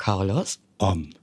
Carlos. An.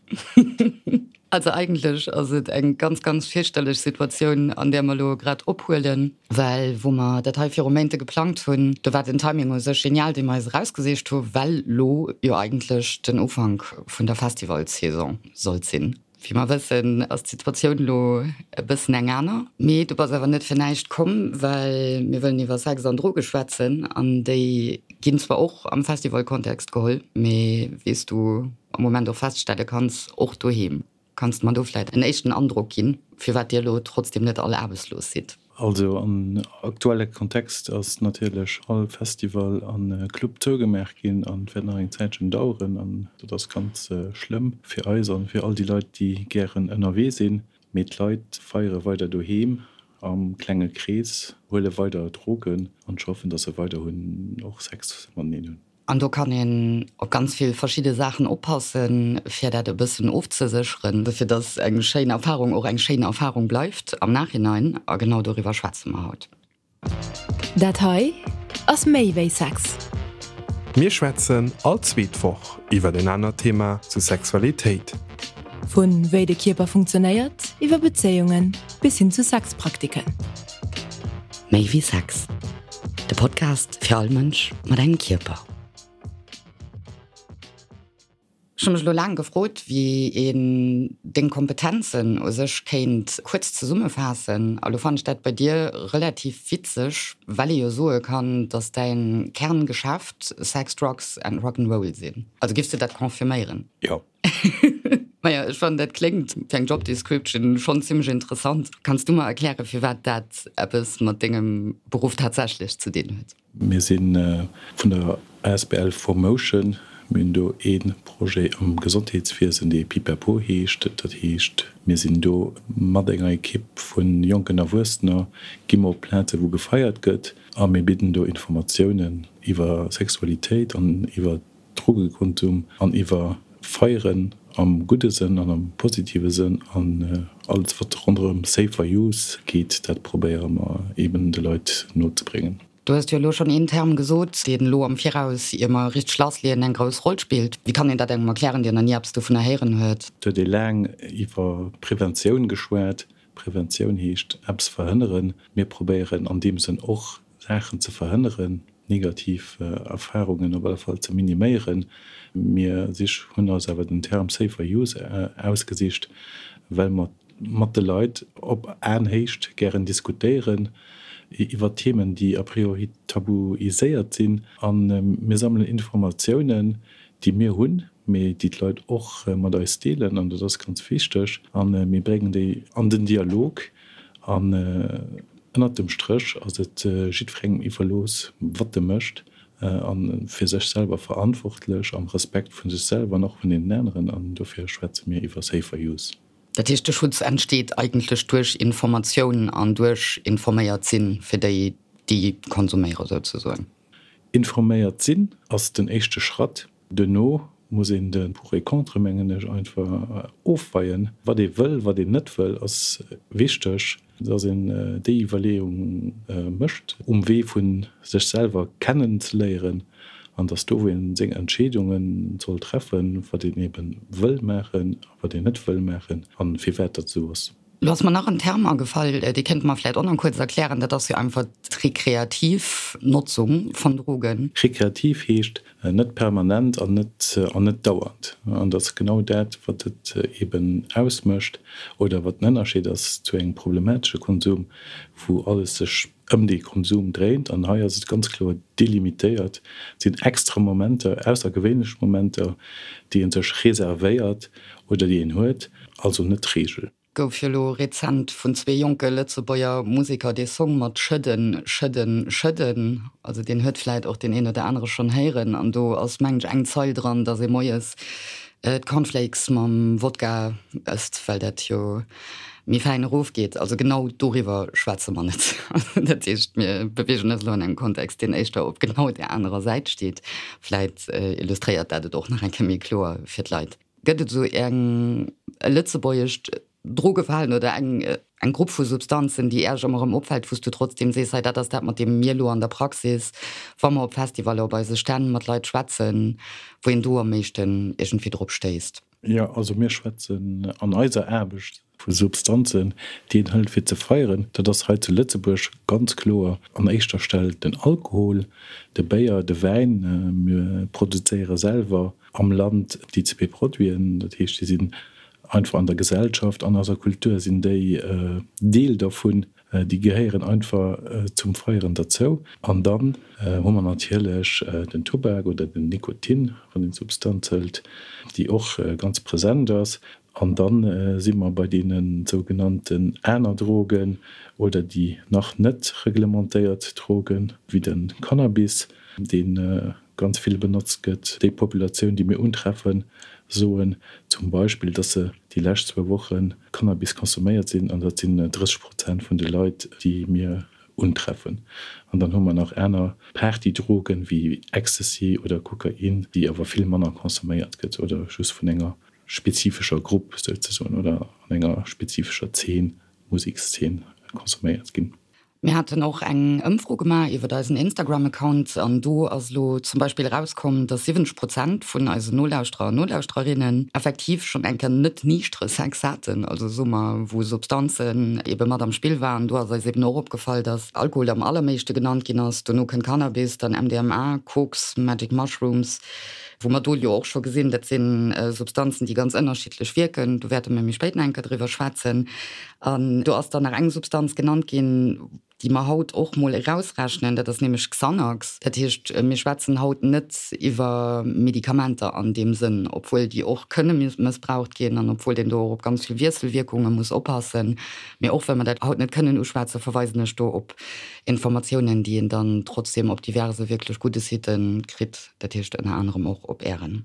Also eigentlech ass et eng ganz, ganz fierchterlech Situatioun, an där mer elo grad ophuelen, well wou mer dat hei viru Méinte geplangt hunn, do war den Timing u sech genial, dee mer eis erausgesicht hu well lo jo eigentlech den Ufank vun der Festivalsaison sollt sinn. Wéi mer wëssen, ass d'Situatioun elo e bëssen eng aner. Mee du bass awer net fir näischt komm, well mir wëllen iwwer Sex an Droge schwätzen an déi ginn zwar och am Festivalkontext geholl, mee wéi s du am Moment och feststelle kanns, och doheem. Kanns de mer do vläit en éischten Androck ginn, firwat dir elo trotzdem net all aarbechtslos sidd? Also am aktuelle Kontext ass natierlech all Festival a Club zougemaach ginn an wäert nach eng Zäitchen daueren. An dat ass ganz schlëmm fir eis an fir all déi Leit, déi gären ënnerwee sinn. Mee d'Leit feiere weider doheem am klenge Krees, huele weider Drogen an ech hoffen, dass se weiderhunn och Sex mateneen hunn. An do kann een op ganz vill verschidde Saachen oppassen, fir dat e bëssen ofzesécheren, fir dass eng schéin Erfahrung och eng schéin Erfahrung bleift am Nachhinein. A genau doriwwer schwätze mer haut. Dat hei ass méi wéi Sex. Mir schwätzen all zweet Woch iwwer en anert Thema zu Sexualitéit. Vu wéi de Kierper funktionéiert, iwwer Bezéiungen bis hin zu Sexpraktiken. Méi wéi Sex, de Podcast fir all Mënsch mat engem Kierper. Ech hu mech elo laang gefrot, wéi een deng Kompetenzen u sech kéint kuerz zesummefaassen. A lo fannen ech dat bei dir relativ witzeg, well ee jo soe kann, dass däin Kerngeschäft Sex, Drugs and Rock'n'Roll sinn. Also giffs de dat confirméieren? Jo. Maja, ech fannen dat kléngt fir eng Job Description schonn zimmlech interessant. Kanns du mer erklären, firwat dat eppes mat dengem Beruff tatsächlech ze dinn huet? Mir si vun der asbl 4Motion. Mir hunn do ee Projet am Gesondheetswiesen, dee Pipapo heescht. Dat heescht, mir sinn do mat enger Ekipp vu jonken Erwuessener, gi mer op Plaze wou gefeiert gëtt a mir bidden do Informatiounen iwwer Sexualitéit an iwwer Drogekonsum an iwwer Feieren am gudde Sënn an am positive Sënn an alles wat ronderëm Safer Use geet, dat probéiere mer eben de Leit nozebréngen. Du hues jo elo schonn een Term gesot, deen elo am Viraus, ier mer richteg lassleeën, eng grouss Roll spillt. Wéi kann een dat engem erklären, deen nach ni eppes dovunner héieren huet? Et huet ee laang iwwer Preventioun geschwat. Preventioun heescht eppes verhënneren. Mir probéieren an deem Sënn och Saachen ze verhënneren, negativ Erfarungen op alle Fall ze miniméieren. Mir sich hunn eis awer den Term Safer Use ausgesicht, well mer mat de Leit op Aenhéicht gären diskutéieren iwwer Themen, déi a priori tabuiséiert sinn. A mir sammelen Informatiounen, déi mir hunn, mee déi d'Leit och mat eis deelen, an dat ass ganz wichteg. A mir bréngen déi an den Dialog. An ënnert dem Stréch ass et jiddwerengem iwwerlooss, wat e mécht, a fir sech selwer verantwortlech, am Respekt vu sech selwer an och vun deenen aneren. An dofir schwätze mir iwwer Safer Use. Dat heescht, de Schutz entsteet eigentlech duerch Informatioun an duerch informéiert sinn, fir déi, déi konsuméiere souzesoen. Informéiert sinn ass den éischte Schratt. Duerno muss een de Pour et Contre, mengen ech, einfach ofweien. Wat ee wëll, wat een net wëll, ass wichteg, dass een déi Iwwerleeung mécht um Wee vu sech selwer kennen ze léieren an dass do, wou ee seng Entscheedunge soll treffen, wat een ebe wëll maachen a wat een net wëll maachen a firwat dat esou ass. Lo ass mer nach en Term agefall, dee kéinte mer vläit och nach kuerz erklären, dat ass jo einfach d'rekreativ Notzung vun Drogen. Rekreativ heescht net permanent an net an net dauernd. An dat ass genau dat, wat et eben ausmécht oder wat den Ënnerscheed ass zu engem problematesche Konsum, wou alles sech ëm dee Konsum dréint. An hei ass et ganz kloer delimitéiert, et sinn extra Momenter, aussergewéinlech Momenter, déi ee sech reservéiert oder déi een huet, also net d'Reegel. Gouf jo lo rezent vun zwee jonke Lëtzebuerger Museker dee Song mat Schëdden, Schëdden, Schëdden, also deen huet vläit och deen een oder anere schonn héieren an do ass mengen ech eng Zeil dran, dass ee moies d'Cornflakes mam Wodka ësst, well dat jo méi fäin erofgeet. Also genau doriwwer schwätze mer net. Dat heescht, mir beweegen eis elo an engem Kontext, deen éischter op genau där anerer Säit steet. Vläit illustréiert dat et och nach eng Kéier méi kloer fir d'Leit. Gëtt et esou eng e lëtzebuergescht Drogeverhalen oder eng. Eng Grupp vu Substanzen, déi Äerch ëmmer erëm opfält, wou s du trotzdem sees, hei dat ass dat, mat deem mir elo an der Praxis, wa mer op Festivaller, op eise Stänn mat Leit schwätzen, wou een do am meeschten iergendwéi drop stéisst? Jo, also mir schwätzen an eiser Aarbecht vu Substanzen, déi een hëlt fir ze feieren. Dat ass hei zu Lëtzebuerg ganz kloer an éischter Stell den Alkohol, de Béier, de Wäin. Mir produzéiere selwer am Land déi zwee Produiten, dat heescht, déi sinn einfach an der Gesellschaft, an eiser Kultur sinn déi Deel dervun, déi gehéieren einfach zum Feieren derzou. An dann hu mer natierlech den Tubak oder den Nikotin, wann een d'Substanz hëlt, déi och ganz present ass. An da si mer bei deene sougenannten aner Drogen oder déi nach net reglementéiert Drogen, wéi de Cannabis, dee ganz vill benotzt gëtt. Déi Populatioun, déi mir untreffen, soen zum Beispill, dass se déi lescht zwou Woche Cannabis consomméiert sinn, an dat sinn 30 Prozent vun de Leit, déi mir untreffen. An dann hu mer nach aner Partydrogen, wéi Ecstasy oder Kokain, déi awer vill manner consomméiert gëtt oder just vun enger spezifescher Grupp souzesoen oder an enger spezifescher Zeen, Musekszeen consomméiert ginn. Mir haten och eng Ëmfro gemaach iwwert eisen Instagram-Account an do ass elo zum Beispill erauskomm, dass 70 Prozent vun eisen Nolauschterer an Nolauschtererinnen effektiv schonn eng Kéier net niichtere Sex haten, also soe mer, wou Substanzen ebe mat am Spill waren. Do ass eis eben och opgefall, dass Alkohol am allermeeschte genannt ginn ass, dono kënnt Cannabis, dann MDMA, Koks, Magic Mushrooms, wou mer do jo och scho gesinn, dat si Substanzen, déi ganz ënnerschiddlech wierken. Do wäerte mir méi spéit nach eng Kéier driwwer schwätzen. An do ass dann nach eng Substanz genannt ginn, déi mer haut och mol erausrechnen, dat ass nämlech Xanax. Dat heescht, mir schwätzen haut net iwwer Medikamenter an deem Sënn, obwuel déi och kënne mëssbraucht ginn an obwuel een do och op ganz vill Wiesselwierkunge muss oppassen. Mee och well mer dat haut net kënnen uschwätzen, verweisen ech do op Informatiounen, déi een dann trotzdem op diverse wierklech gudde Sitë kritt, dat heescht ënner anerem och op Ären.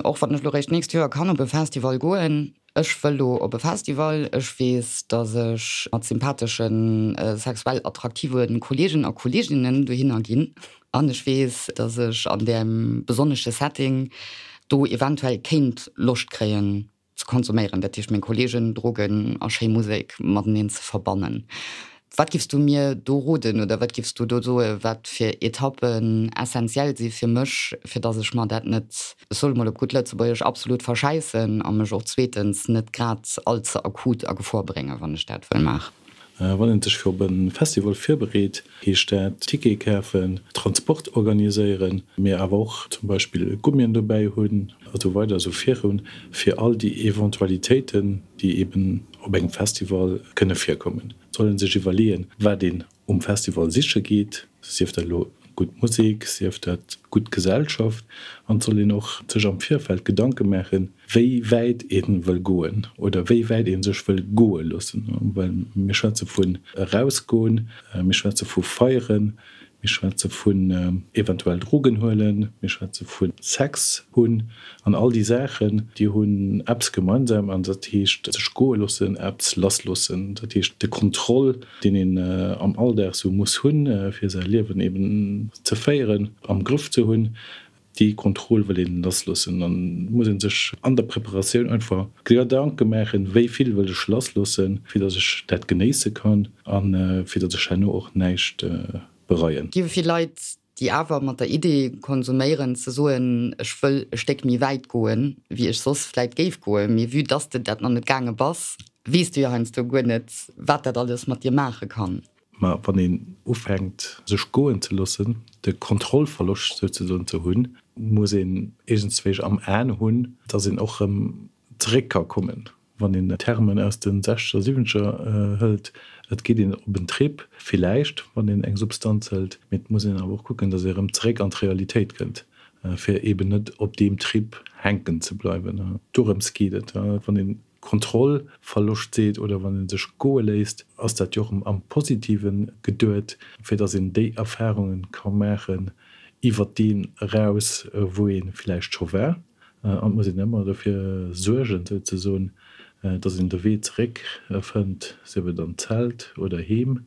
Och wann ech lo réischt d'nächst Joer kann op e Festival goen, ech wëll lo op e Festival. Ech weess, dass ech mat sympatheschen, sexuell attraktive Kollegen a Kolleginnen dohinner ginn. An ech weess, dass ech an deem besonnesche Setting do eventuell kéint Loscht kréien, ze konsuméieren, dat heescht meng Kollegen, Drogen a schéi Musek mateneen ze verbannen. Wat giffs du mir do roden oder wat giffs du do soe wat fir Etappen essentiell si fir mech, fir datt ech mer dat net, ech soe mol op gutt Lëtzebuergesch, absolut verschäissen a mech och zweetens net grad all ze akut a Gefor bréngen, wann ech dat wëll maachen? Wann een sech fir op e Festival virbereet, heescht dat Tickete kafen, Transport organiséieren, mee awer och zum Beispill Gummien dobäi hunn a sou weider esou virun, fir all déi Eventualitéiten, déi eben op engem Festival kënne virkommen. Et soll ee sech iwwerleeën, wat een um Festival siche geet, sief dat elo gutt Musek, sief dat gutt Gesellschaft, an et soll een och sech am Virfeld Gedanke maachen, wéi wäit ee wëll goen oder wéi wäit ee sech wëll goe loossen, well mir schwätze vun erausgoen, mir schwätze vu feieren, mir schwätze vun eventuell Drogen huelen, mir schwätze vu Sex hunn an all déi Saachen, déi hunn eppes gemeinsam an dat heescht sech goe loossen, eppes lassloossen, dat heescht de Kontroll deen een am Alldag sou muss hunn, fir säi Liewen eben ze féieren, am Grëff ze hunn, déi Kontroll wëll een lassloossen. An et muss ee sech an der Preparatioun einfach Gedanke maachen, wéi vill wëll ech lassloossen, fir datt ech dat genéisse kann a fir datt ech herno och näischt bereien. Gi vill Leit, déi awer mat der Idee konsuméieren, ze soen, ech wëll e Stéck méi wäit goen, wéi ech soss vläit géif goen, mee vue dass de dat nach net gaange bass, weess du jo heiansdo guer net, wat dat alles mat dir maache kann. Mä wann een ufänkt, sech goen ze loossen, de Kontrollverloscht souzesoen ze hunn, muss een iergendswéi am Aen hunn, dass een och erëm zeréck ka kommen. Wann een Termen aus de sechzeger, siwwenzeger hëlt, et geet een op en Trip, villäicht, wann een eng Substanz hëlt, mee et muss een awer och kucken, dass ee erëm zeréck an d'Realitéit kënnt, fir eeben net op deem Trip hänken ze bleiwen. Dorëms geet et, wann een Kontrollverloscht seet oder wann ee sech goe léisst, ass dat jo och am Positive geduet, fir dass een déi Erfarunge ka maachen iwwert deen eraus, wou ee villäicht scho war. An et muss een ëmmer dofir suergen, souzesoen, dass een de Wee zeréck fënnt, sief et an d'Zelt oder heem.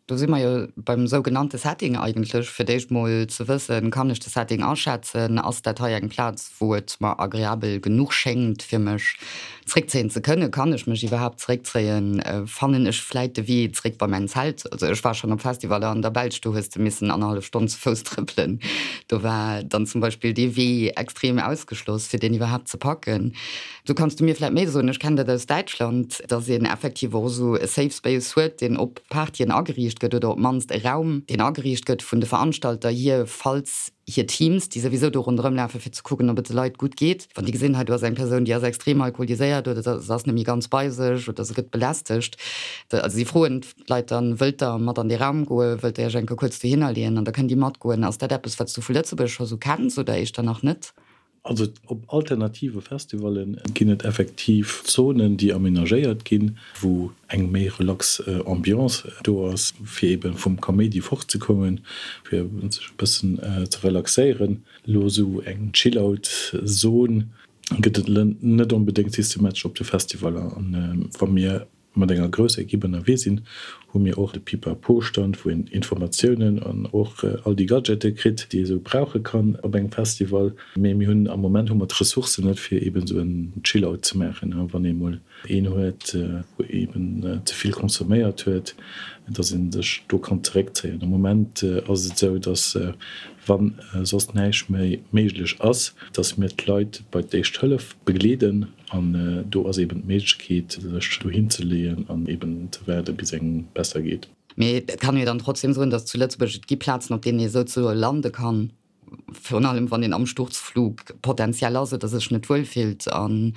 Do si mer jo beim sougenannte Setting eigentlech, fir d'éischt mol ze wëssen, kann ech de Setting aschätzen, ass dat hei eng Plaz, wou et mer agreabel genuch schéngt, fir mech zréckzéien ze kënnen, kann ech mech iwwerhaapt zréckzéien, fannen ech vläit de Wee zréck bei mäin Zelt. Also ech war schonn op Festivaller an der Belsch, do hues de missen annerhallef Stonn zu Fouss trëppelen, do war dann zum Beispill dee Wee extrem ausgeschloss, fir deen iwwerhaapt ze packen. Do kanns du mir vläit méi soen, ech kennen dat aus Däitschland, dass een effektiv och esou e Safe Space huet, deen op Partyen ageriicht gëtt oder op d'mannst e Raum, deen ageriicht gëtt vun de Veranstalter hier, falls hir Teams, déi souwisou do ronderëm lafen, fir ze kucken, ob et de Leit gutt geet, wann déi gesinn, hei do ass eng Persoun, déi ass extrem alkoholiséiert oder se ass net méi ganz bei sech oder se gëtt belästegt. Also si froen d'Leit dann, Wëllt der mat an dee Raum goen? Wëllt der iech eng Kéier kuerz dohinner leeën? An da kënnen déi matgoen. Ass dat eppes, wat s du vu Lëtzebuerg scho sou kenns oder éischter nach net? Also op alternative Festivalle ginn et effektiv Zonen, déi amenagéiert ginn, wou eng méi relax Ambiance do ass, fir eebe vum Kaméidi fortzekommen, fir sech e bëssen ze relaxéieren. Elo esou eng Chill-out-Zon gëtt et net onbedéngt systematesch op de Festivaller. An wa mir mat enger grousser Equipe ënnerwee sinn, hu mir och de Pipapo-Stand, wou een Informatiounen an och all déi Gadgete kritt, déi ee sou brauche kann op engem Festival. Mee mir hunn am Moment hu mer d'Ressourcen net, fir eeben esou en Chill-out ze maachen. Wann ee mol een huet, wou eeben ze vill consomméiert huet, dass ee sech do kann zeréckzéien. Am Moment ass et esou, dass wa soss näischt méi méiglech ass, dass mir d'Leit bei d'Éischt Hëllef begleeden. An do ass eben d'Méiglechkeet, sech dohin ze leeën an eben ze waarden, bis engem besser geet. Mee et kann ee jo dann trotzdem soen, datt zu Lëtzebuerg et gi Plazen, op deenen ee souzesoe lande kann, virun allem wann een am Sturzflug potenziell ass oder sech net wuel fillt, an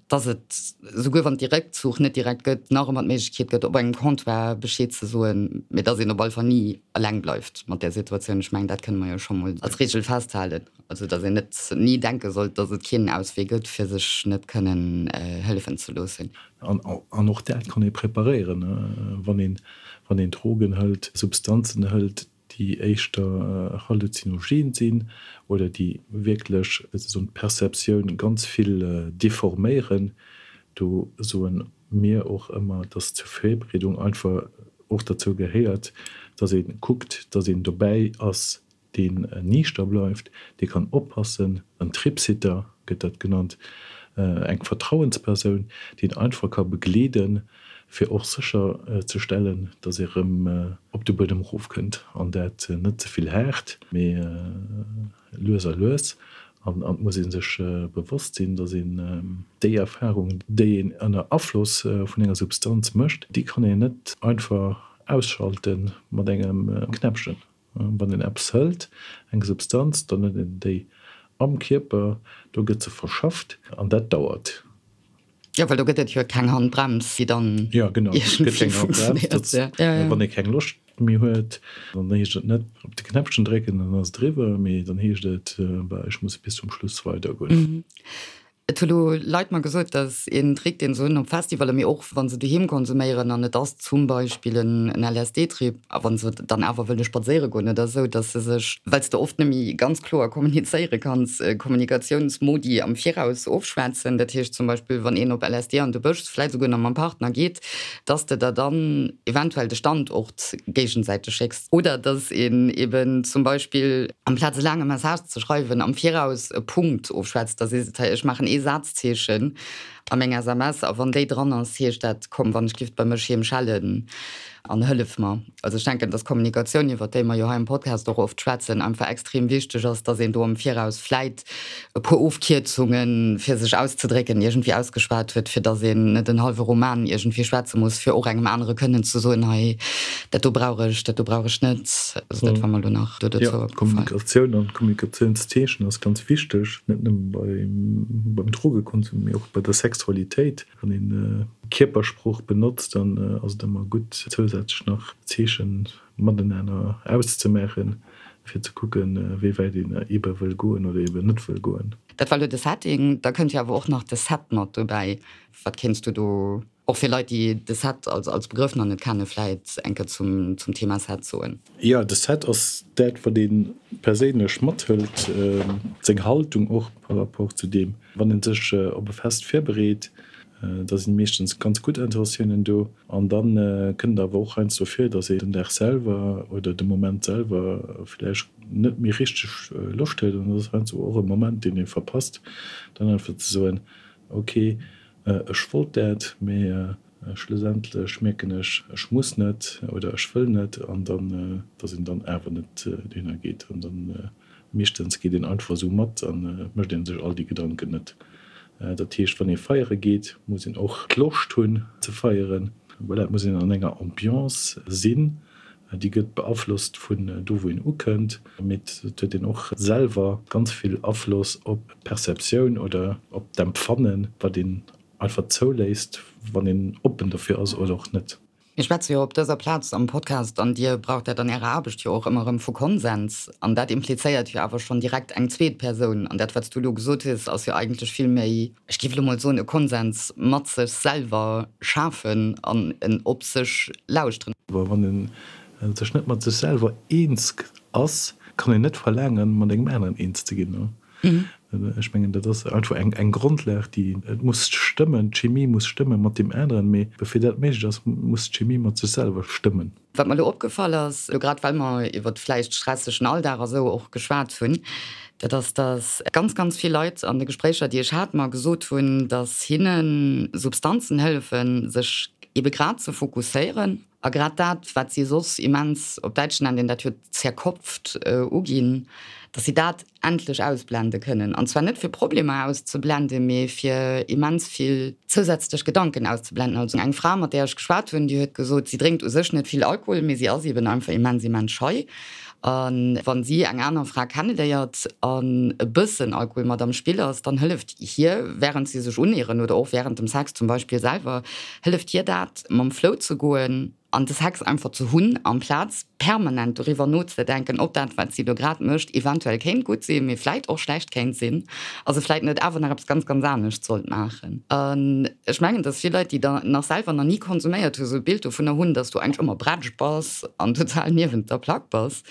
datt et, souguer wann et dee Réckzuch net direkt gëtt, nach ëmmer d'Méiglechkeet gëtt, op engem Comptoir Bescheed ze soen, mee datt een op alle Fall ni eleng bleift mat där Situatioun. Ech mengen, dat kënne mer jo scho mol als Reegel festhalen. Also datt een net ni denke sollt, datt et keen Auswee gëtt, fir sech net kënnen hëllefen ze loossen. An och dat kann ee preparéieren, wann een, wann een Drogen hëlt, Substanzen hëlt, déi éischter halluzinogen sinn oder déi wierklech soen d'Perceptioun ganz vill deforméieren. Do soe mir och ëmmer, datt zur Virbereedung einfach och derzou gehéiert, datt ee kuckt, datt een dobäi ass, deen niichter bleift, dee kann oppassen, en Tripsitter gëtt dat genannt, eng Vertrauenspersoun, déi een einfach ka begleeden, fir och sécher ze stellen, datt ee rëm op de Buedem erofkënnt, an dat net ze vill haart, mee lues a lues. An et muss ee sech bewosst sinn, datt een déi Erfarung, déi een ënner Afloss vun enger Substanz mécht, déi kann een net einfach ausschalte mat engem Knäppchen. Wann een eppes hëlt, eng Substanz, dann huet een déi am Kierper, do gëtt se verschafft an dat dauert. Jo, well do gëtt et jo keng Handbrems, déi dann iergendwéi funktionéiert. Wann ee keng Loscht méi huet, dann heescht et net op de Knäppchen drécken, dann ass et eriwwer, mee dann heescht et, bah, ech muss bis zum Schluss weidergoen. Et hu lo Leit mer gesot, dass een Trick, deen se hunn op Festivaller, mee och wa se doheem konsuméieren, an et ass zum Beispill en LSD-Trip, a wa se dann awer wëlle spadséiere goen oder esou, dass se sech, well s de oft net méi ganz kloer kommunizéiere kanns, Kommunikatiounsmodi am Viraus ofschwätzen. Dat heescht zum Beispill, wann een op LSD an de Bësch, vläicht esouguer nach mam Partner geet, dass de der dann eventuell de Standort géigesäiteg schécks oder dass een eben zum Beispill, amplaz e laange Message ze schreiwen, am Viraus e Punkt ofschwätzt, da sees de, hei, ech maachen ee Sazzeechen a meng SMS a wann déi dran ass, heescht dat, komm, wann ech giff bei mech heem schellen an hëllef mer. Also ech denken, dass Kommunikatioun, iwwert déi mer jo hei am Podcast och oft schwätzen, einfach extrem wichteg ass, dass een do am Viraus vläit e puer Ofkierzungen, fir sech auszedrécken, iergendwéi ausgeschwat huet, fir dass een net en hallwe Roman iergendwéi schwätze muss, fir och engem anere kënnen ze soen, hei, dat do brauch ech, dat do brauch ech net. Also dat war mer elo nach do dozou opgefall. Kommunikatioun an Kommunikatiounszeechen ass ganz wichteg, net nëmme beim Drogekonsum, mee och bei der Sexualitéit. Wann een Kierpersprooch benotzt, dann ass et ëmmer gutt, zousätzlech nach Zeechen matenaner auszemaachen, fir ze kucken, wéi wäit een ebe wëll goen oder eben net wëll goen. Dat war elo de Setting. Da kënnt jo awer och nach de Set mat dobäi. Wat kéints du do, och fir Leit, déi de Set als Begrëff nach net kennen, vläit eng Kéier zum Thema Set soen? Jo, de Set ass dat, wat ee perséinlech mathëlt, seng Haltung och par rapport zu deem, wann ee sech op e Fest virbereet. Da sinn meeschtens ganz gutt Intentiounen do. An da kënnt et awer och heiansdo vir, datt een den Dag selwer oder de Moment selwer vläicht net méi richteg Loscht huet. An dat ass heiansdo och e Moment, deen ee verpasst, dann einfach ze soen, ok, ech wollt dat, mee schlussendlech mierken ech, ech muss net oder ech wëll net. An dann, datt een dann awer net dohinner geet. An dann Meeschtens geet een einfach esou mat an et mécht een sech all déi Gedanken net. Dat heescht, wann ee feiere geet, muss een och d'Loscht hunn ze feieren. Voilà, et muss een an enger Ambiance sinn, déi gëtt beaflosst vun do wou een ukënnt, mee et huet een och selwer ganz vill Afloss op d'Perceptioun oder op d'Empfannen, wat een einfach zouléisst, wann een oppen dofir ass oder och net. Mir schwätze jo op dëser Plaz am Podcast, an Dir braucht dat an Ärer Aarbecht jo och ëmmer erëm, vu Konsens. An dat implizéiert jo awer schonn direkt eng zweet Persoun. An dat, wat s du elo gesot hues, ass jo eigentlech vill méi, ech géif elo mol soen, e Konsens mat sech selwer schafen an en op sech lauschteren. Wann ee sech net mat sech selwer eens ass, kann een net verlaangen, mat engem aneren eens ze ginn. Ech mengen, dat ass einfach eng, eng Grondlag, déi, et muss stëmmen, d'Chemie muss stëmme mat deem aneren, mee bevir dat méiglech ass, muss d'Chemie mat sech selwer stëmmen. Wat mer elo opgefall ass, elo grad well mer iwwert vläicht stressegen Alldag a sou och geschwat hunn, dat ass, dass ganz, ganz vill Leit an de Gespréicher, déi ech hat, mer gesot hunn, dass hinne Substanzen hëllefen, sech ebe grad ze fokusséieren A grad dat, wat si soss immens, op Däitsch nennt een dat jo zerkopft, uginn, datt si dat endlech ausblende kënnen. An zwar net fir Problemer auszeblenden, mee fir immens vill zousätzlech Gedanken auszeblenden. Also eng Fra, mat där ech geschwat hunn, déi huet gesot, si drénkt u sech net vill Alkohol, mee si ass eben einfach immens, immens schei. A wa si eng aner Fra kenneléiert an e bëssen Alkohol mat am Spill ass, dann hëlleft hir, wärend si sech uneeren oder och wärend dem Sex zum Beispill selwer, hëlleft hir dat, mam Flow ze goen an de Sex einfach ze hunn, amplaz permanent doriwwer nozedenken, ob dat, wat si do grad mécht, eventuell kéint gutt sinn, mee vläit och schlecht kéint sinn a se vläit net awer nach eppes ganz, ganz anescht sollt maachen. An ech mengen, dass vill Leit, déi da nach selwer nach ni konsuméiert hunn, esou e Bild dovunner hunn, dass du eigentlech ëmmer bretsch bass an total niewent der Plack bass.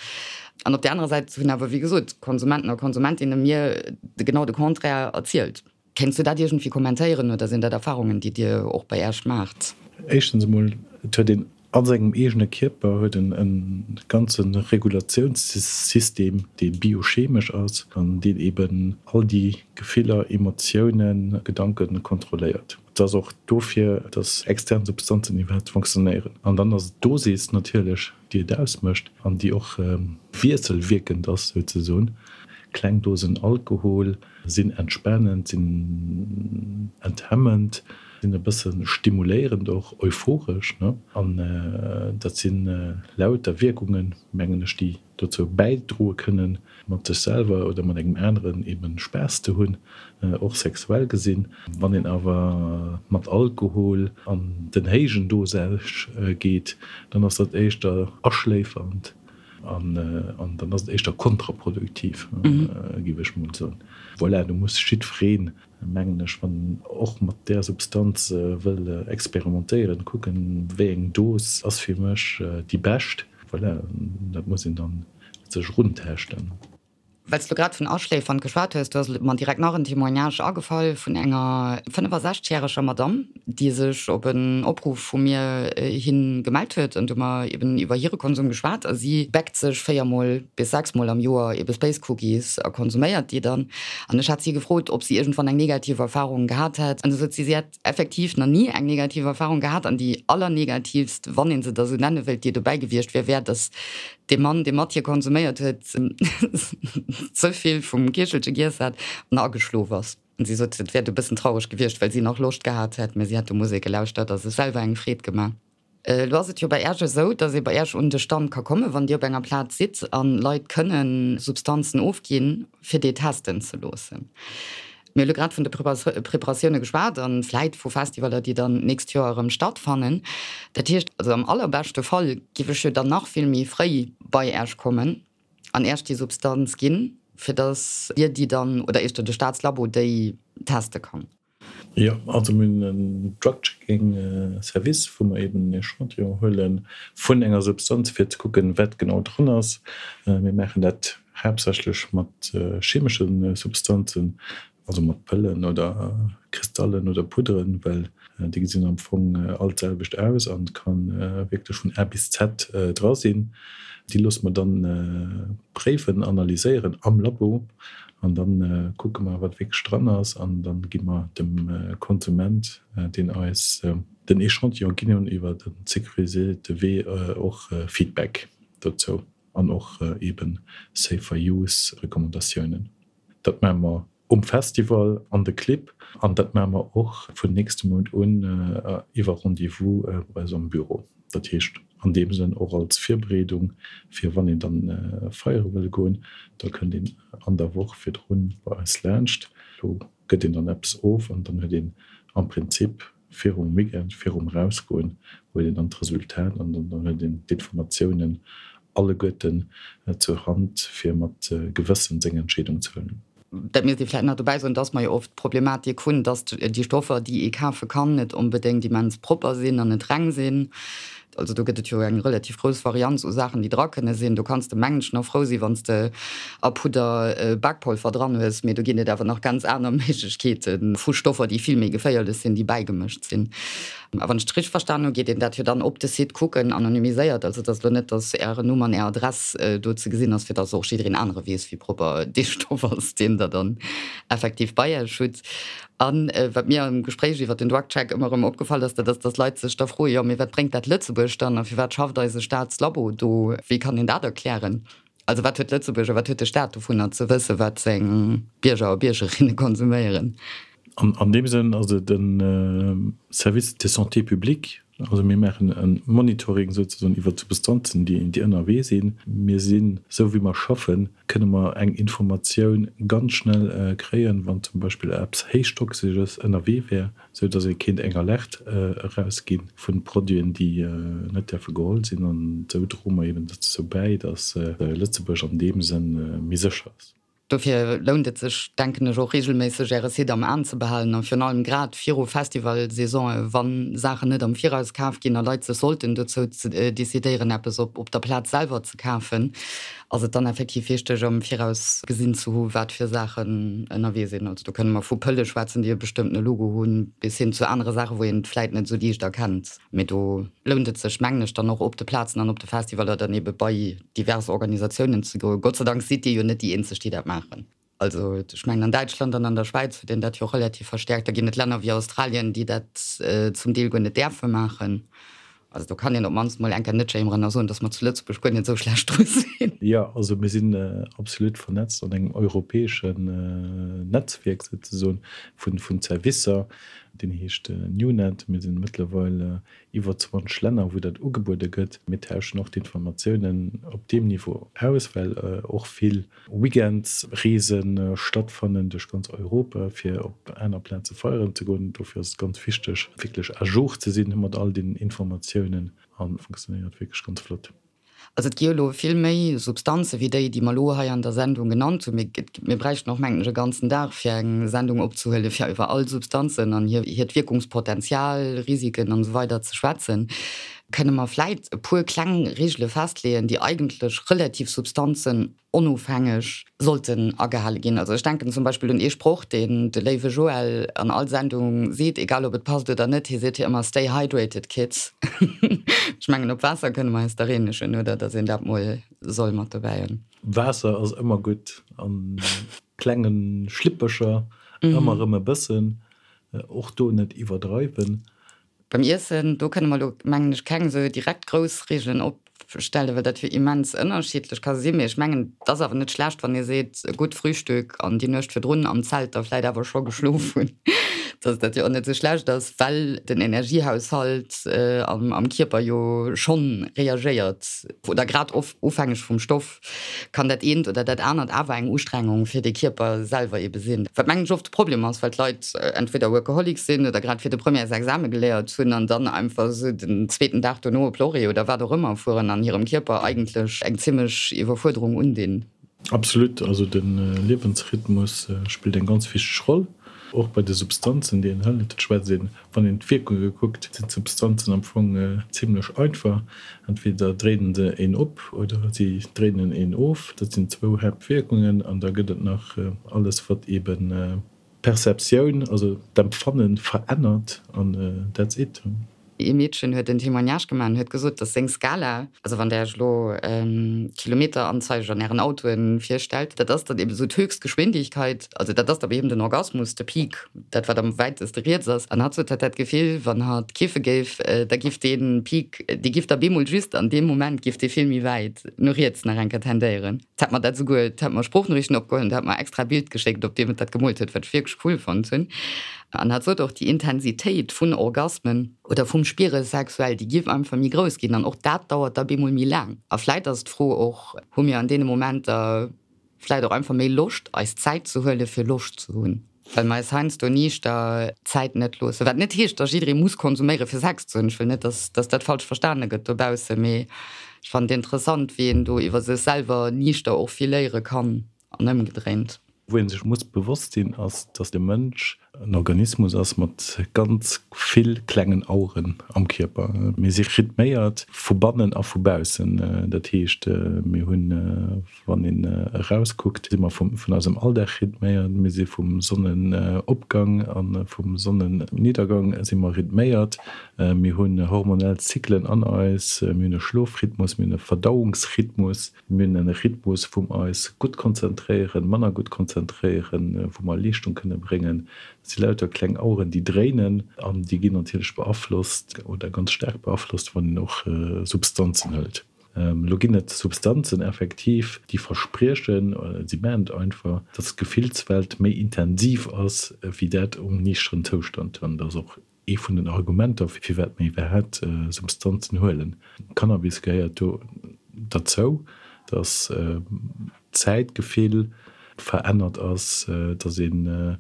An op där anerer Säit hunn awer, wéi gesot, Konsumenten a Konsumentinne mir genau de Contraire erzielt. Kéints du dat iergendwéi kommentéieren oder sinn dat Erfarungen, déi Dir och bei Äech maacht? Éischtens emol, et huet een a sengem eegene Kierper huet en e ganze Regulatiounssystem, dee biochemesch ass an deen eben all déi Gefiller, Emotiounen, Gedanke kontrolléiert. Et ass och dofir, dass extern Substanzen iwwerhaapt fonctionnéieren. An dann ass et d'Dosis natierlech, déi et ausmécht an déi och wiesselwierkend ass souzesoen. Kleng Dosen Alkohol sinn entspanend, sinn enthemmend, sinn e bësse stimuléierend och, euphoresch, ne? An dat si lauter Wierkungen, mengen ech, déi dozou bäidroe kënnen, mat sech selwer oder mat engem aneren eben Spaass ze hunn, och sexuell gesinn. Wann een awer mat Alkohol an den héijen Dosage geet, dann ass dat éischter aschléifernd an dann ass et éischter kontraproduktiv, géif ech mol soen. Voilà, do muss jiddwereen, mengen ech, wann en och mat där Substanz wëll experimentéieren, kucken, wéi eng Dos ass fir mech déi bescht. Voilà, dat muss een dann sech eruntaaschten. Well s du grad vun Aschléifern geschwat hues, do ass mer direkt nach en Témoignage agefall vun enger 65 järeger Madamm, déi sech op en Opruff vu mir hi gemellt huet. An do hu mer eben iwwer hire Konsum geschwat a si bäckt sech 4 mol bis 6 mol am Joer ebe Space Cookies a konsuméiert déi dann. An ech hat si gefrot, ob si iergendwann eng negativ Erfarung gehat hätt. An du sot si, si hätt effektiv nach ni eng negativ Erfahrung gehat an déi allernegativst, wann ee se da sou nenne wëllt, déi dobäi gewiescht wier, wär, datt dee Mann, dee mat hir konsuméiert huet, ze vill vum Kichelche giess hat an ageschlof ass. An si sot, et wär du e bëssen traureg gewiescht, well si nach Loscht gehat hätt, mä si hätt do Musek gelauschtert a sech selwer eng Freed gemaach. Elo ass et jo bei Äerch esou, dass ee bei Äerch un de Stand ka kommen, wann Dir op enger Plaz sidd, an Leit kënne Substanzen ofginn, fir déi testen ze loossen. Mir hu elo grad vun de Preparatioune geschwat an vläit vu Festivaler, déi dann d'nächst Joer erëm stattfannen. Dat heescht also, am allerbeschte Fall giff ech jo dann nach vill méi fréi bei Äerch kommen an Äerch déi Substanz ginn, fir dass Dir déi dann, oder éischter de Staatslabo déi teste kann. Jo, also mir hunn en Drug-Checking Service, wou mer eben en Echantillon huele vun enger Substanz, fir ze kucken, wat genau dran ass. Mir maachen dat haaptsächlech mat chemesche Substanzen, also mat Pëllen oder. Kristallen oder Pudderen, well déi gesinn am Fong all d'selwecht aus an et ka wierklech vun A bis Z dra sinn. Déi loosse mer dann préiwen, analyséieren am Labo an da kucke mer, wat wierklech dran ass an da gi mer dem Konsument, deen eis den Echantillon ginn hunn, iwwer e sécuriséierte Wee och Feedback dozou an och eeben Safer Use Recommandatiounen. Dat maache mer um Festival an de Clibb an dat maache mer och vun nächstem Mount un iwwer Rendez-vous bei eis am Büro. Dat heescht an deem Sënn och als Virbereedung fir wann een dann feiere wëll goen, da kënnt een an der Woch virdrun bei eis laanscht. Do gëtt een dann eppes of an dann huet een am Prinzip virum Weekend, virum Erausgoen, huet een dann d'Resultat an dann huet een d'Informatiounen alleguerten zur Hand, fir mat Gewëssen seng Entscheedung ze huelen. Dat misst ee vläicht nach dobäi soen, dass mer jo oft d'Problematik hunn, dass déi Stoffer, déi ee kafe kann, net onbedéngt immens propper sinn an net reng sinn. Also do gëtt et jo eng relativ grouss Varianz u Saachen, déi dra kënne sinn. Do kanns de, mengen ech, nach frou sinn, wann s de a Pudder Bakpolver dran hues, mee do ginn et awer nach ganz aner Méiglechkeete vu Stoffer, déi vill méi geféierlech sinn, déi bäigemëscht sinn. A wann ech et richteg verstan hu, geet een dat jo dann op de Site kucken, anonymiséiert, also et ass elo net, datt Ären Numm an Är Adress do ze gesinn ass, fir datt och jiddereen anere weess, wéi propper dee Stoff ass, deen Der dann effektiv bei Iech hutt. A wat mir am Gespréich iwwer den DrugCheck ëmmer erëm opgefall ass, dat ass, datt Leit sech da froen, jo, mee wat bréngt dat Lëtzebuerg dann a firwat schafft eise Staatslabo do? Wéi kann een dat erklären? Also wat huet Lëtzebuerg a wat huet de Staat dovunner ze wëssen, wat seng Bierger a Biergerinne konsuméieren? An deem Sënn ass et e Service de santé publique. Also mir maachen e Monitoring souzesoen iwwer d'Substanzen, déi ënnerwee sinn. Mir sinn, esou wéi mer schaffen, kënne mer eng Informatioun ganz schnell kréien, wann zum Beispill eppes Héichtoxesches ënnerwee wär. sou dass ee kéint eng Alerte erausgi vu Produiten, déi net däerfe geholl sinn. An esou droe mer eben dozou bäi, dass Lëtzebuerg an deem Sënn méi sécher ass. Dofir lount et sech, denken ech, och reegelméisseg Äre Site am Aen ze behalen a virun allem grad viru Festivalsaisonen, wa Saachen net am Viraus kaf ginn a Leit sech sollten dozou decidéieren, eppes op der Plaz selwer ze kafen, Ass et dann effektiv wichteg am Viraus gesinn ze hu wat fir Saachen ënnerwee sinn? Also do kënne mer vu Pëlle schwätzen, déi e bestëmmtene Logo hunn, bis hin zu anere Saachen, wou een et vläit net esou liicht erkennt. Mee do lount et sech, mengen ech, dann och op de Plazen an op de Festivaler dann ebe bei divers Organisatiounen ze goen. Gott sei Dank sidd Dir jo net déi eenzeg, déi dat maachen. Also ech mengen an Däitschland an an der Schwäiz huet een dat jo relativ verstäerkt. Da ginn et Länner wéi Australien, déi dat zum Deel guer net däerfe maachen. Also do kann een op d'mannst mol eng Kéier net jéimeren a soen, datt mer zu Lëtzebuerg guer net esou schlecht dru sinn. Jo, also mir sinn absolut vernetzt an engem europäeschen Netzwierk souzesoen vun Servicer, deen heescht NewNet. Mir sinn mëttlerweil iwwer 20 Länner, wou dat ugebuede gëtt. Mir tauschen och d'Informatiounen op deem Niveau aus, well och vill Weekendsreese stattfannen duerch ganz Europa, fir op aner Plaze feieren ze goen. Dofir ass et ganz wichteg, wierklech à jour ze sinn mat all den Informatiounen a funktionéiert wierklech ganz flott. Also et gi jo elo vill méi Substanze wéi déi, déi mer elo hei an der Sendung genannt hunn. Mir bräichten och, mengen ech, e ganzen Dag, fir eng Sendung opzehuelen, fir iwwer all Substanzen an hiert Wierkungspotenzial, Risiken an esou weider ze schwätzen. Kënne mer vläit e puer kleng Regele festleeën, déi eigentlech relativ Substanzen onofhängeg sollten agehale ginn? Also ech denken zum Beispill un ee Sproch, deen de léiwe Joël an all Sendung seet, egal ob et passt oder net, hie seet jo ëmmer, Stay hydrated, kids. Ech mengen, op Waasser kënne mer eis dach eenegen, oder? Datt een dat mol soll mat dobäi hunn. Waasser ass ëmmer gutt, a klenge Schlippecher ëmmer erëm e bëssen, och do net iwwerdreiwen. Beim Iessen, do kënne mer elo, mengen ech, keng esou direkt grouss Regeln opstellen, well dat jo immens ënnerschiddlech ka sinn. Mee ech mengen, et ass awer net schlecht, wann ee seet, e gutt Frühstück an déi Nuecht virdrun am Zelt da vläit awer scho geschlof hunn, dass dat jo och net esou schlecht ass, well den Energiehaushalt am Kierper jo schonn reagéiert oder grad ofhängeg vum Stoff. kann dat eent oder dat anert awer eng Ustrengung fir de Kierper selwer ebe sinn. Wat mengen ech oft de Problem ass, well d'Leit entweder Workaholics sinn oder grad fir de Premièresexame geléiert hunn an dann einfach esou den zweeten Dag dono op Lorry oder wat och ëmmer fueren an hirem Kierper eigentlech eng zimmlech Iwwerfuerderung undinn. Absolut, also de Liewensrhythmus spillt eng ganz wichteg Roll, och bei de Substanzen déi een hëlt. Et schwätzt een Wann een d'Wierkunge kuckt, sinn d'Substanzen am Fong zimlech einfach, Entweder dréinen se een op oder si dréinen een of. Dat sinn zwou Haaptwierkungen. An da gëtt et nach alles, wat eebe. D'Perceptioun, also d'Empfanne verännert an that's it. Ee Meedchen huet en Témoignage gemaach an huet gesot, dass seng Skala, also wann Der Iech elo Kilometeranzeiger an Ären Autoen virstellt, dat ass dann eben esou d'Höchstgeschwindigkeit, also dat ass da bei him den Orgasmus, de Peak, dat wat am wäiteste riets ass. An hatt sot, hatt hätt d'Gefill, wann hatt kiffe géif, da giff dee Peak, dee giff da bemol just an deem Moment giff dee vill méi wäit no riets nach eng Kéier tendéieren. D'hätt mer dat esouguer, d'hätt mer Sproochnoriichten opgeholl an d'hätt mer extra e Bild geschéckt, op deem et dat gemoolt huet, wat ech wierklech cool fonnt hunn. An hat sot och, déi Intensitéit vun Orgasmen oder vum Spiere sexuell, déi giff einfach méi grouss ginn an och dat dauert da bemol méi laang. A vläit ass d'Fro och, hu mir an deene Momenter vläit och einfach méi Loscht, eis Zäit ze huele fir Loscht ze hunn? Well mer eis heiansdo niichter Zäit net loossen. Wat net heescht, dass jidderee muss konsuméiere fir Sex ze hunn. Ech wëll net, dass dass dat falsch verstane gëtt dobaussen, mee ech fannen et interessant, wéi een do iwwer sech selwer niichter och vill léiere kann an ëmgedréint. Wou ee sech muss bewosst sinn, ass, dass de Mënsch en Organismus ass mat ganz vill klengen Aueren am Kierper. Mir si rhythméiert vu bannen a vu baussen. Dat heescht, mir hunn Wann een erauskuckt, si mer vun eisem Alldag rhythméiert, mir si vum Sonnenopgang a vum Sonnenniedergang si mer rhythméiert, mir hunn hormonell Zyklen an eis, mir hunn e Schlofrhythmus, mir hunn e Verdauungsrhythmus, mir hunn e Rhythmus, wou mer eis gutt konzentréieren, manner gutt konzentréieren, wou mer Leeschtung kënne bréngen. Dat si lauter kleng Aueren, déi dréinen an déi ginn natierlech beaflosst oder ganz staark beaflosst, wann een och Substanzen hëlt. Elo ginn et Substanzen effektiv, déi verspriechen, oder si maachen et einfach, dass d'Gefillswelt méi intensiv ass wéi dat um niichteren Zoustand. An dat ass och ee vun den Argumenter, firwat mir iwwerhaapt Substanzen huelen. Cannabis gehéiert do derzou, dass d'Zäitgefill verännert ass, dass ee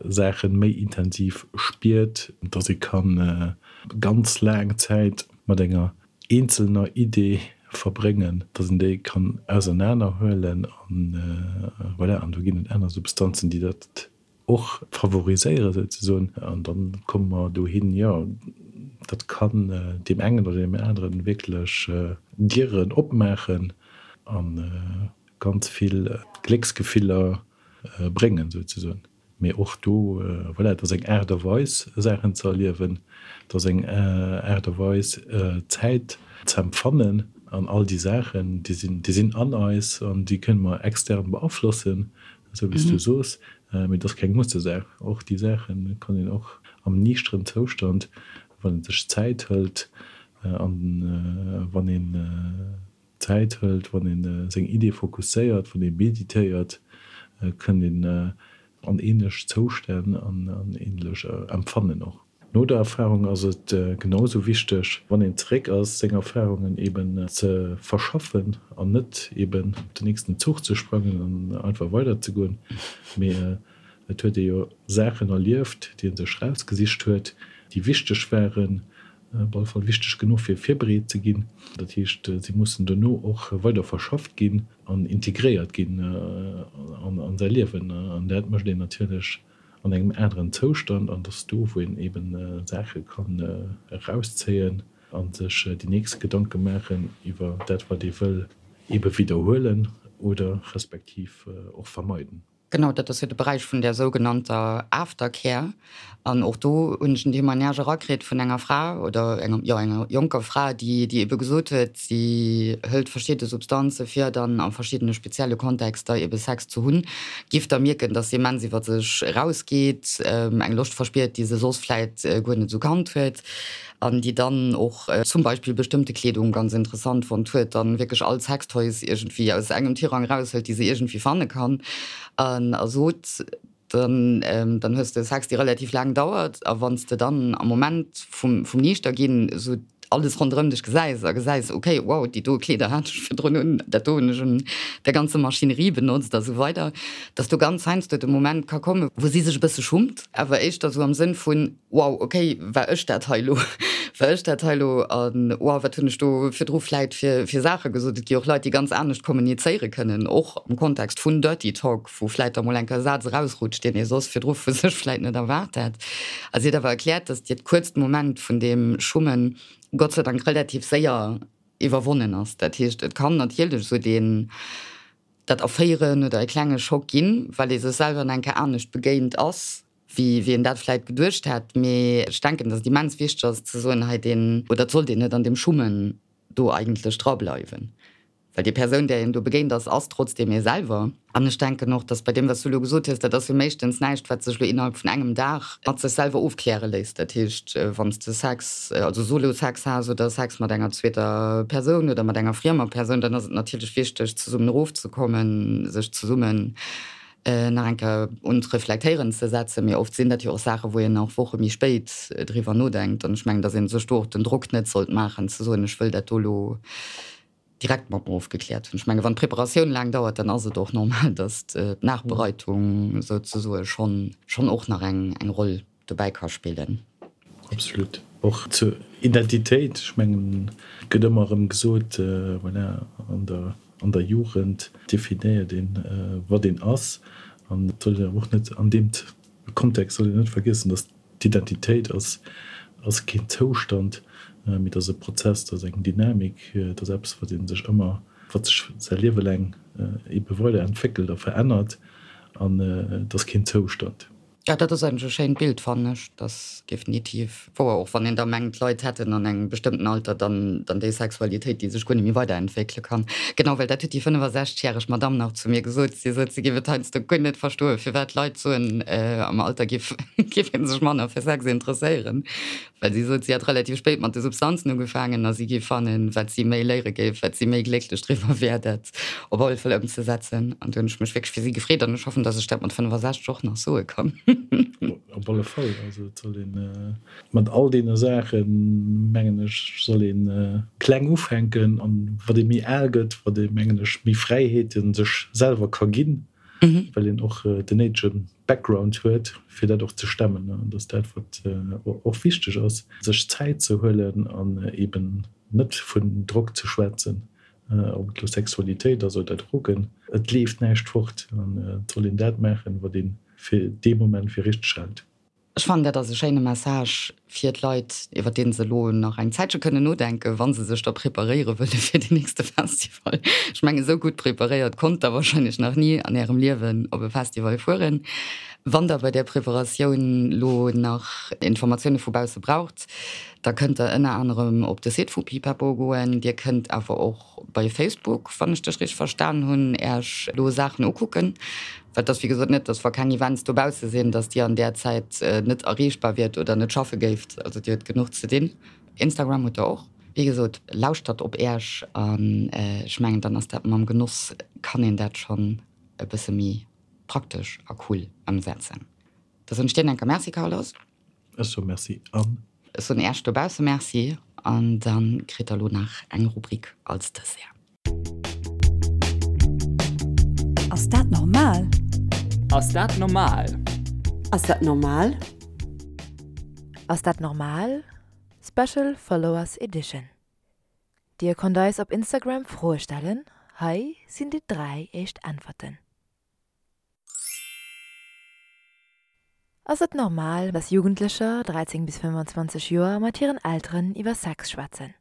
Saachen méi intensiv spiert, dass ee kann ganz laang Zäit mat enger eenzelner Idee verbréngen, dass een déi kann ausernaner huelen an voilà. An do ginn et aner Substanzen, déi dat och favoriséieren souzesoen an dann komme mer dohin, jo, dat kann deem engen oder deem aneren wierklech Dieren opmaachen a ganz vill Glécksgefiller bréngen souzesoen. Mee och do, voilà, et ass eng Aart a Weis Saachen ze erliewen, et ass eng Aart a Weis Zäit ze empfannen an all déi Saachen, déi sinn, déi sinn an eis an déi kënne mer extern beaflossen, esou wéi s du soos, mee et ass keng Mussesaach. Och déi Saache kann een och am niichteren Zoustand, wann ee sech Zäit hëlt an wann een, Zäit hëlt, wann ee seng Iddie fokusséiert, wann ee meditéiert, kënnt een an ähnlech Zoustänn an an ähnlech Empfannen och. No der Erfarung ass et genau esou wichteg, wann een zeréck ass, seng Erfarungen eben ze verschaffen an net eben op den nächsten Zuch ze sprangen an einfach weider ze goen, mee et huet ee jo Saachen erlieft, déi ee sech rausgesicht huet, déi wichteg waren, Op alle Fall wichteg genuch fir virbereet ze ginn. Dat heescht, si mussen dono och weider verschafft ginn an integréiert ginn an säi Liewen. An dat mécht een natierlech an engem aneren Zoustand. An et ass do, wou een eeben Saache kann erauszéien a sech déi nächst Gedanke maachen iwwer dat, wat ee wëll eebe widderhuelen oder respektiv och vermeiden. Genau, dat ass jo de Beräich vun där sougenannter Aftercare. An och do hunn ech en Témoignage erakritt vun enger Fra oder enger, jo, enger jonker Fra, déi, déi ebe gesot huet, si hëlt verschidde Substanze fir dann a verschiddene spezielle Kontexter ebe Sex ze hunn, giff da mierken, dass se immens iwwer sech erausgeet, eng Loscht verspiert, déi se soss vläit guer net esou kannt huet. An déi dann och zum Beispill bestëmmte Kleedung ganz interessant fonnt huet, dann wierklech all Sextoys iergendwéi aus engem Tirang eraushëlt, déi se iergendwéi fanne kann, an a sot, dann dann hues de Sex, dee relativ laang dauert, a wann s de dann am Moment vum vum Niichterginn esou alles ronderëm dech gesäis a gesäis, okay, wow, déi do Kleeder hat ech virdrun un, dat do hunn ech un der ganzer Maschinerie benotzt a sou weider, dass do ganz heiansdo de Moment ka kommen, wou si sech e bësse schummt, awer éischter esou am Sënn vun, Wow, ok, war ech dat hei elo? War ech dat hei elo? An wow, wat hunn ech do virdru vläit fir, fir Saache gesot? Et gi och Leit, déi ganz anescht kommunizéiere kënnen, och am Kontext vun Dirty Talk, wou vläit da mol eng Kéier e Saz erausrutscht, deen ee soss virdru vu sech vläit net erwaart hätt. A si huet awer erkläert, datt hiert kuerzt Moment vun deem Schummen Gott sei Dank relativ séier iwwerwonnen ass. Dat heescht, et kann natierlech esou deen. dat erféieren oder e klenge Schock ginn, well ee sech selwer nach eng Kéier anescht begéint ass, wéi wéi een dat vläit geduecht hätt. Mee ech denken, datt et immens wichteg ass ze soen, hei deen, oder et sollt een net an deem Schummen do eigentlech drableiwen. Well déi Persoun, där een do begéint ass, ass trotzdeem ee selwer. An ech denken och, dass bei deem, wat s du elo gesot hues, dat ass jo meeschtens näischt, wat sech elo innerhalb vun engem Dag mat sech selwer ofkläre léisst. Dat heescht, wann s de Sex, also Solo-Sex has oder Sex mat enger zweeter Persoun oder mat enger friemer Persoun, dann ass et natierlech wichteg, zesummen erofzekommen, sech zesummen nach eng Kéier un d'Reflektéieren ze setzen. Mee oft sinn dat jo och Saachen, wou een och Woche méi spéit driwwer nodenkt. An ech mengen, dass ee sech do och den Drock net sollt maachen, ze soen, ech wëll dat do elo direkt mat mer ofgekläert hunn. Ech menge wann d'Preparatioun laang dauert, dann ass et och normal, datt d'Nachbereitung souzesoe schonn schonn och nach eng eng Roll dobäi ka spillen. Absolut. Och zur Identitéit, ech mengen, et gëtt ëmmer erëm gesot, voilà, an der an der Jugend definéiert een, wat een ass. An et soll een awer och net an deem Kontext soll een net vergiessen, datt d'Identitéit ass ass keen Zoustand, mee dat ass e Prozess, dat ass eng Dynamik, dat ass eppes, wat ee sech ëmmer, wat sech säi Liewe laang ebe weider entwéckelt a verännert an et ass keen Zoustand. Jo, dat ass eigentlech e schéint Bild, fannen ech. Dat ass definitiv wouer, och wann een da mengt, d'Leit hätten an engem bestëmmten Alter dann dann déi Sexualitéit, déi sech guer net méi weiderentwéckele kann. Genau, well dat huet déi 65 järeg Madamm nach zu mir gesot. Si sot, si géif et heiansdo guer net verstoen, firwat d'Leit soen, am Alter géif géif ee sech manner fir Sex interesséieren. Well si sot, si hätt relativ spéit mat de Substanzen ugefaangen a si géif fannen, wat si méi léiere géif, wat si méi glécklech driwwer wär, dat op alle Fall ëmzesetzen. An do hunn ech mech wierklech fir si gefreet an ech hoffen, datt ech dat mat 65 och nach soe kann. Op alle Fall. Also et soll ee mat all deene Saachen, mengen ech, soll ee kleng ufänken. An wat ee méi al gëtt, wat ee, mengen ech, méi Fräiheete sech selwer ka ginn, well een och den néidege Background huet, fir dat och ze stemmen. An dat ass dat, wat och wichteg ass, sech Zäit ze huelen an eben net vun Drock ze schwätzen, ob et elo Sexualitéit ass oder Drogen. Et leeft näischt fort an et soll een dat maachen, wat ee fir dee Moment fir richteg hält. Ech fannen, dat ass e schéine Message fir d'Leit, iwwer dee se elo nach eng Zäitche kënnen nodenken, wa se sech da preparéiere wëlle fir den nächste Festival. Ech mengen, esou gutt preparéiert konnt Der wahrscheinlech nach ni an Ärem Liewen op e Festival fueren. Wann Der bei där Preparatioun elo nach Informatioune vu bausse braucht, da kënnt Der ënner anerem op de Site vu Pipapo goen. Dir kënnt awer och bei Facebook, wann ech dech richteg verstan hunn, Äech elo Saachen ukucken. Well et ass wéi gesot net, dass wa keng Events dobausse sinn, dass Dir an där Zäit net erreechbar wiert oder net schaffe géift. Also Dir hutt genuch ze dinn. Instagram hutt Der och. Wéi gesot, lauschtert op Äech an ech mengen, dann ass dat mam Genoss, kann een dat schonn e bësse méi praktesch a cool ëmsetzen. Da soen ech dir enker Merci, Carlos. Ech soe Merci an. Ech soen Äech dobausse Merci an da kritt Der elo nach eng Rubrik als Dessert. Ass dat normal? Ass dat normal? Ass dat normal? Ass dat normal? Special Followers Edition Dir konnt eis op Instagram Froe stellen, hei sinn déi 3 éischt Äntwerten. Ass et normal, dass Jugendlecher, 13 bis 25 Joer, mat hiren Elteren iwwer Sex schwätzen?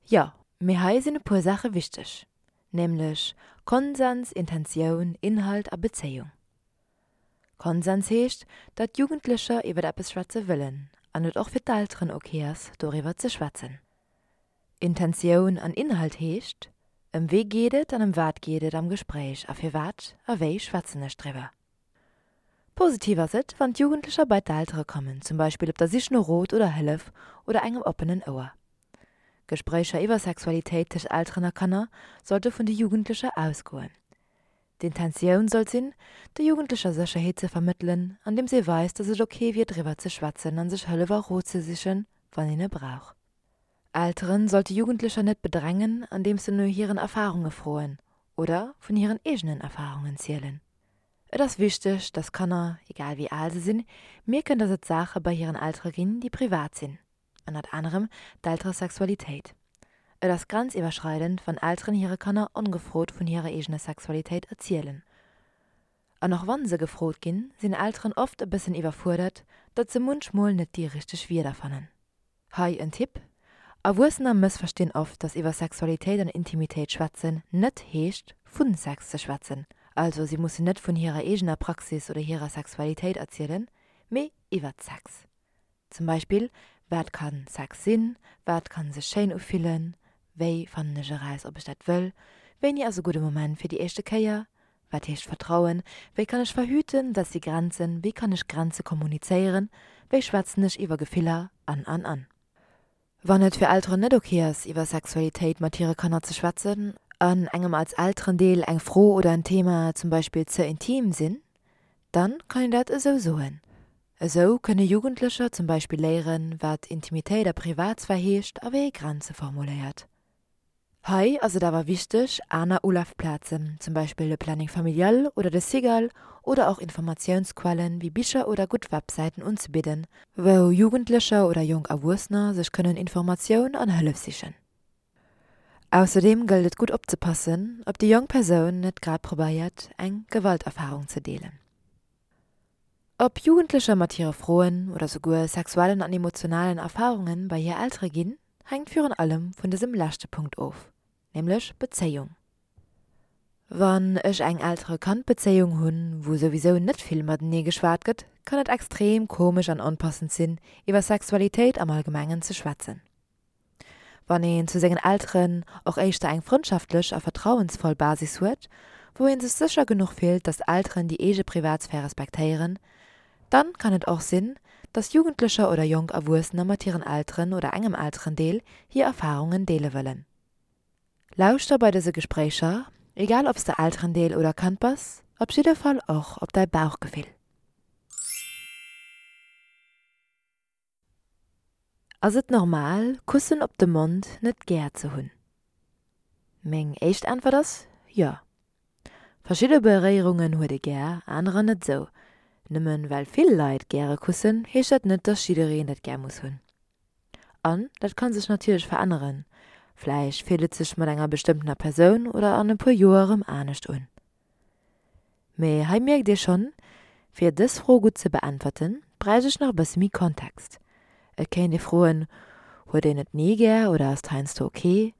Jo, mee hei sinn e puer Saache wichteg, nämlech Konsens, Intentioun, Inhalt a Bezéiung. Konsens heescht, datt Jugendlecher iwwer eppes schwätze wëllen an et och fir d'Elteren ok ass, doriwwer ze schwätzen. Intentioun an Inhalt heescht, ëm wee geet et an ëm wat geet et am Gespréich a firwat a wéi schwätzen ech driwwer. Positiv ass et, wann d'Jugendlecher bei d'Eltere kommen, zum Beispill op der Sich no Rot oder Hëllef oder engem oppenen Ouer. Gespréicher iwwer Sexualitéit tëscht Elteren a Kanner sollte vun de Jugendlecher ausgoen. D'Intentioun sollt sinn, de Jugendlecher Sécherheet ze vermëttelen, andeems ee weist, datt et ok wier driwwer ze schwätzen a sech Hëllef a Rot ze sichen, wann een e brauch. Elteren sollte Jugendlecher net bedrängen, andeems se no hiren Erfarunge froen oder vun hiren eegenen Erfarungen zielen. Et ass wichteg, dass Kanner, egal wéi al se sinn, mierken, dass et Saache bei hiren Eltere ginn, déi privat sinn, ënnert anerem d'Elteresexualitéit. Et ass grenziwwerschreidend, wann Elteren hire Kanner ongefrot vun hirer eegener Sexualitéit erzielen. An och wann se gefrot ginn, sinn Elteren oft e bëssen iwwerfuerdert, datt se munchmol net déi richteg Wierder fannen. Hei en Tipp, Erwuessener mëssverstinn oft, dass iwwer Sexualitéit an Intimitéit schwätzen net heescht, vu Sex ze schwätzen. Also si mussen net vun hirer eegener Praxis oder hirer Sexualitéit erzielen, mee iwwert Sex. Zum Beispill, Wat kann Sex sinn? Wat kann sech schéin ufillen? Wéi fannen ech eraus, ob ech dat wëll? Wéini ass e gudde Moment fir déi éischte Kéier? Wat heescht Vertrauen? Wéi kann ech verhüten? Wat si Grenzen? Wéi kann ech Grenze kommunizéieren? Wéi schwätzen ech iwwer Gefiller? An, an, an. Wann et fir Elteren net ok ass, iwwer Sexualitéit mat hire Kanner ze schwätzen, an engem als Elterendeel eng Fro oder en Thema zum Beispill ze intim sinn, dann kann een dat esou soen. Esou kënne Jugendlecher zum Beispill léieren, wat Intimitéit a Privatsphär heescht a wéi ee Grenze formuléiert. Hei ass et awer wichteg, aner Ulafplazen, zum Beispill de Planning familial oder de Cigal oder och Informatiounsquellen wéi Bicher oder gutt Websäiten unzebidden, wou Jugendlecher oder jonk Erwuessener sech kënnen Informatioun an Hëllef sichen. Ausserdeem gëllt et gutt opzepassen, ob déi jonk Persoun net grad probéiert, eng Gewalterfarung ze deelen. Ob Jugendlecher mat hire Froen oder souguer sexuellen an emotionalen Erfarunge bei hir Eltere ginn, hänkt virun allem vun dësem leschte Punkt of, nämlech Bezéiung. Wann ech eng Eltere-Kand-Bezéiung hunn, wou souwisou net vill matenee geschwat gëtt, kann et extrem komesch an onpassend sinn, iwwer Sexualitéit am Allgemengen ze schwätzen. Wann een zu sengen Elteren och éischter eng frëndschaftlech a vertrauensvoll Basis huet, wou een sech sécher genuch fillt, dass d'Elteren déi eege Privatsphär respektéieren, dann kann et och sinn, dass Jugendlecher oder jonk Erwuessener mat hiren Elteren oder engem Elterendeel hir Erfarungen deele wëllen. Lauschter bei dëse Gespréicher, egal ob s de Elterendeel oder Kand bass, op jidde Fall och op däi Bauchgefill. Ass et normal, Kussen op de Mond net gär ze hunn? Meng éischt Äntwert ass, jo. Verschidde Beréierungen huet ee gär, anerer net esou. Nëmmen well vill Leit gäre kussen, heescht dat net, dass jiddereen dat gär muss hunn. An dat kann sech natierlech veränneren, vläicht fillt et sech mat enger bestëmmtener Persoun oder an e puer Joer erëm anescht un. Mee hei mierkt Dir schonn, fir dës Fro gutt ze beäntwerten, bräicht ech nach e bësse méi Kontext. Et kéint ee froen, Huet een et ni gär oder ass et heiansdo ok?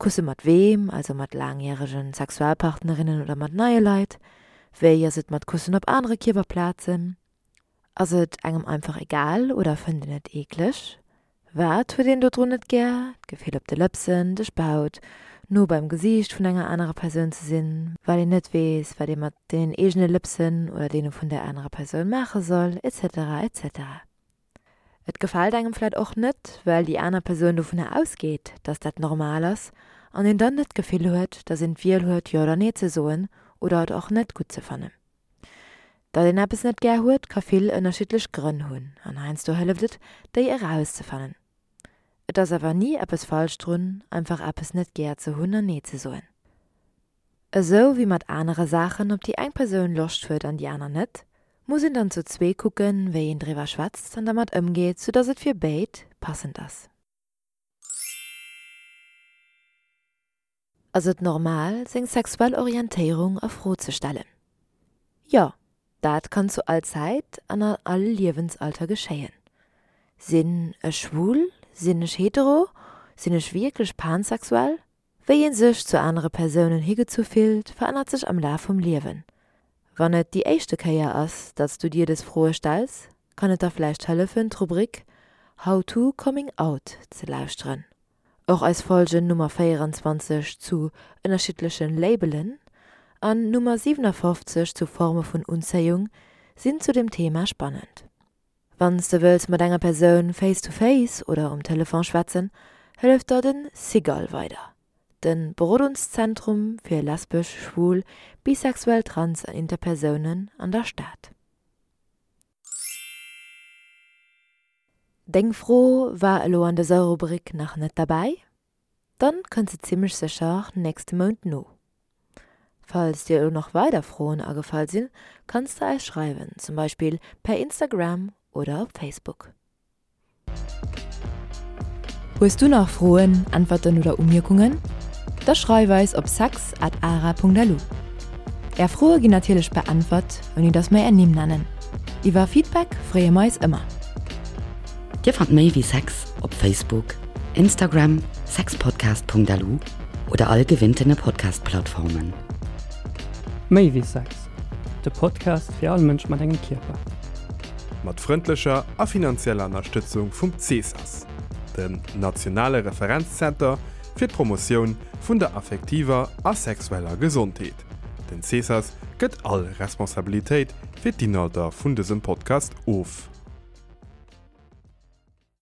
Kusse mat weem, also mat laangjärege Sexualpartnerinnen oder mat neie Leit? Wéi ass et mat Kussen op anere Kierperplazen? Ass et engem einfach egal oder fënnt een et eekleg? Wat huet een dodrun net gär? D'Gefill op de Lëpsen, de Spaut, no beim Gesiicht vun enger anerer Persoun ze sinn, well een net weess, wat ee mat deenen eegene Lëpsen oder deene vun där anerer Persoun maache soll, etc. Etc. Et gefält engem vläit och net, well déi aner Persoun dovunner ausgeet, dass dat normal ass an een dann net d'Gefill huet, dass een d'Wiel huet, jo oder nee ze soen oder et och net gutt ze fannen. Datt een eppes net gär huet, ka vill ënnerschiddlech Grënn hunn an heiansdo hëlleft et, déi erauszefannen. Et ass awer ni eppes falsch drun, einfach eppes net gär ze hunn an Nee ze soen. Esou wéi mat anere Saachen, op déi eng Persoun Loscht huet an déi aner net, muss een dann zu zwee kucken, wéi een driwwer schwätzt an dermat ëmgeet, soudatt et fir béid passend ass. Ass et normal, seng sexuell Orientéierung a Fro ze stellen? Jo, dat kann zu all Zäit an an all Liewensalter geschéien. Sinn ech schwul? Sinn ech hetero? Sinn ech wierklech pansexuell? Wéi ee sech zu anere Persounen higezu fillt, verännert sech am Laf vum Liewen. Wann et déi éischte Kéier ass, datt s du dir dës Froe stells, kann et der vläicht hëllefen, d'Rubrik How to Coming Out ze lauschteren. Och eis Folgen Nummer 24 zu ënnerschiddlechen Labelen an Nummer 57 zu Forme vun Unzéiung sinn zu dem Thema spannend. Wann s de wëlls mat enger Persoun face to face oder um Telefon schwätzen, hëlleft der den SIGAL weider, den Berodungszentrum fir lesbesch, schwul, bisexuell, trans an interpersounen an der Stad. Deng Fro war elo an dëser Rubrik nach net derbäi? Dann kënnt se zimmlech sécher nächste Mount no. Falls dir elo nach weider Froen agefall sinn, kanns de eis schreiwen, zum Beispill per Instagram oder op Facebook. Hues du nach Froen, Äntwerten oder Umierkungen? Da schreif eis op sex at ara.lu. Är Froe ginn natierlech beäntwert, ouni dass mer är Nimm nennen. Iwwer Feedback freeë mer eis ëmmer. Dir fannt méi wéi Sex op Facebook, Instagram, sexpodcast.lu oder all gewinntene Podcast-Plattformen. Méi wéi Sex, de Podcast fir all Mënsch mat engem Kierper. Mat frëndlecher a finanzieller Ënnerstëtzung vum CSAS, dem nationale Referenzzenter fir d'Promotioun vun der affektiver a sexueller Gesondheet. Den CSAS gëtt all Responsabilitéit fir d'Inhalter vun dësem Podcast of.